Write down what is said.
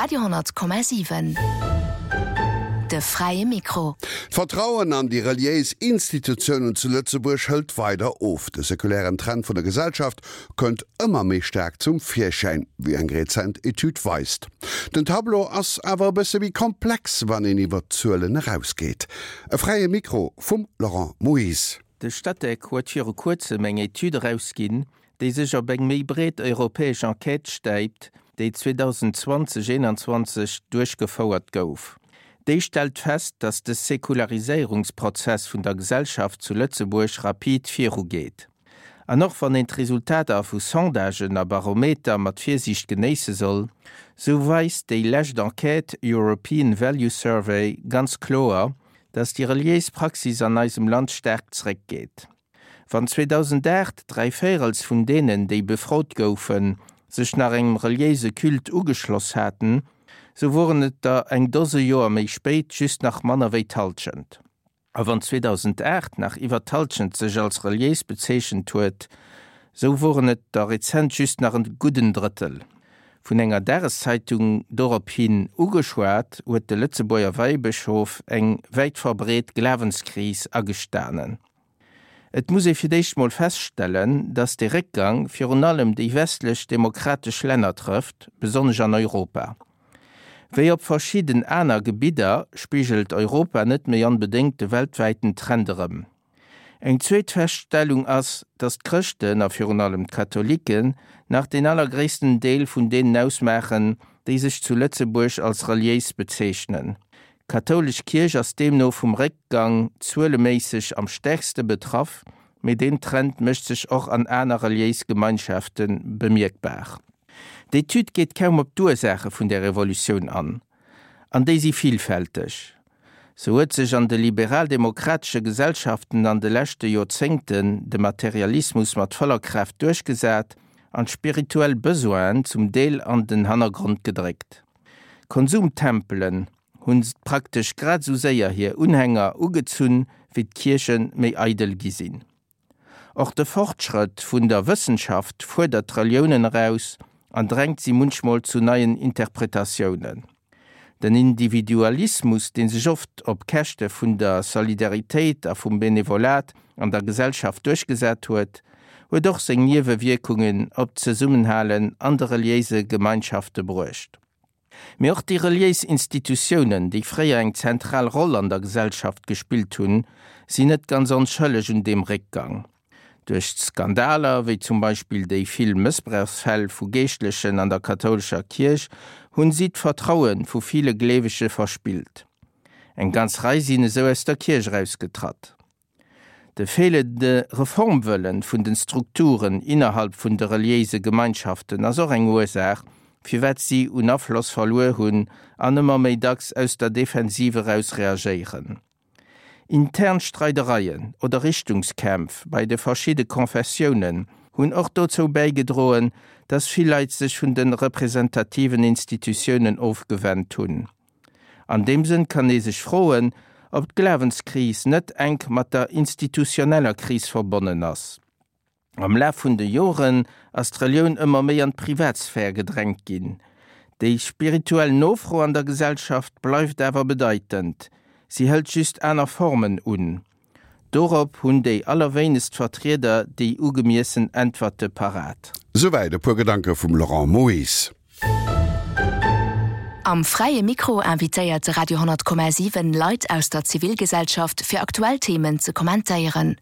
Radio 10,7 De fräie Mikro. D'Vertrauen an déi reliéis Institutiounen zu Lëtzebuerg hëlt weider of. De sekulären Trend vun der Gesellschaft kënnt ëmmer méi staark zum Virschäin, wéi eng rezent Etüd weist. Den Tableau ass awer e bësse méi komplex, wann een iwwer d'Zuelen erausgeet. E fräie Mikro vum Laurent Moyse. De Statec huet viru kuerzem eng Etüd erausginn, déi sech op eng méi breet europäesch Enquête stäipt, déi 2020, 21 duerchgefouert gouf. Déi stellt fest, datt de Säkulariséierungsprozess vun der Gesellschaft zu Lëtzebuerg rapid virugeet. An och wann een d'Resultater vu Sondagen a Barometer mat Virsiicht genéisse soll, sou weist déi lescht Enquête European Value Survey ganz kloer, datt déi reliéis Praxis an eisem Land staark zeréckgeet. Wann 2008 dräivéierels vun deenen, déi befrot goufen, sech nach engem reliéise Culte ugeschloss haten, sou woren et der eng Dose Joer méi spéit just nach manner wéi d'Hallschent. A wann 2008 nach iwwer d'Hallschent sech als reliéis bezeechent huet, sou woren et der rezent just nach e gudden Drëttel. Vun enger Dageszeitung dorop hin ugeschwat, huet de Lëtzebuerger Weibëschof eng wäit verbreet Glawenskris agestanen. Et muss ee fir d'éischt mol feststellen, datt dee Réckgang virun allem déi westlech demokratesch Länner trëfft, besonnesch an Europa. Wéi op verschidden aner Gebidder spigelt Europa net méi onbedéngt de weltwäiten Trend erëm. Eng zweet Feststellung ass, datt d'Chrëschten, a virun allem d'Katholiken, nach deen allergréissten Deel vun deenen ausmaachen, déi sech zu Lëtzebuerg als reliéis bezeechnen. D'kathoulesch Kierch ass deemno vum Réckgang zueleméisseg am stäerkste betraff, mee deen Trend mécht sech och an aner reliéis Gemeinschafte bemierkbar. D'Etüd geet kaum op d'Ursaache vun där Revolutioun an, an déi si villfälteg. Sou huet sech an de liberal-demokratesche Gesellschaften an de leschte Joerzéngten de Materialismus mat voller Kraaft duerchgesat an d'spirituell Besoinen zum Deel an den Hannergrond gedréckt. Konsumtempelen hunn praktesch grad esou séier hir Unhänger ugezunn, wéi d'Kierche méi eidel gi sinn. Och de Fortschrëtt vun der Wëssenschaft fuerdert d'Reliounen eraus an drängt si munchmol zu neien Interpretatiounen. Den Individualismus, dee sech oft op Käschte vun der Solidaritéit a vum Benevolat an der Gesellschaft duerchgesat huet, huet och seng Niewewierkungen op d'Zesummenhalen an de reliéise Gemeinschafte bruecht. Mee och déi reliéis Institutiounen, déi fréier eng zentral Roll an der Gesellschaft gespillt hunn, sinn net ganz onschëlleg un deem Réckgang. Duerch Skandaler, wéi zum Beispill déi vill Mëssbrauchsfäll vu Geeschtlechen an der kathoulescher Kierch, hunn si d'Vertraue vu ville Gleewege verspillt. Eng ganz Rei sinn esou aus der Kierch erausgetratt. De feelende Reformwëllen vun den Strukturen innerhalb vun de reliéise Gemeinschaften ass och eng Ursaach, firwat si un Afloss verluer hunn an ëmmer méi dacks aus der Defensive eraus reagéieren. Intern Streidereien oder Richtungskämpf bei de verschidde Konfessiounen hunn och dozou bäigedroen, dass vill Leit sech vun de representativen Institutiounen ofgewennt hunn. An deem Sënn kann ee sech froen, ob d'Glawenskris net enk mat der institutioneller Kris verbonnen ass. Am Laf vun de Joren ass d'Relioun ëmmer méi an d'Privatsphär gedrängt ginn. Déi spirituell Nofro an der Gesellschaft bleift awer bedeitend, si hëlt just aner Formen un. Dorop hunn déi allerwéinegst Vertrieder déi ugemiessen Äntwerte parat. Souwäit e puer Gedanke vum Laurent Moyse. Am Fräie Mikro invitéiert de Radio 10,7 Leit aus der Zivilgesellschaft fir aktuell Themen ze kommentéieren.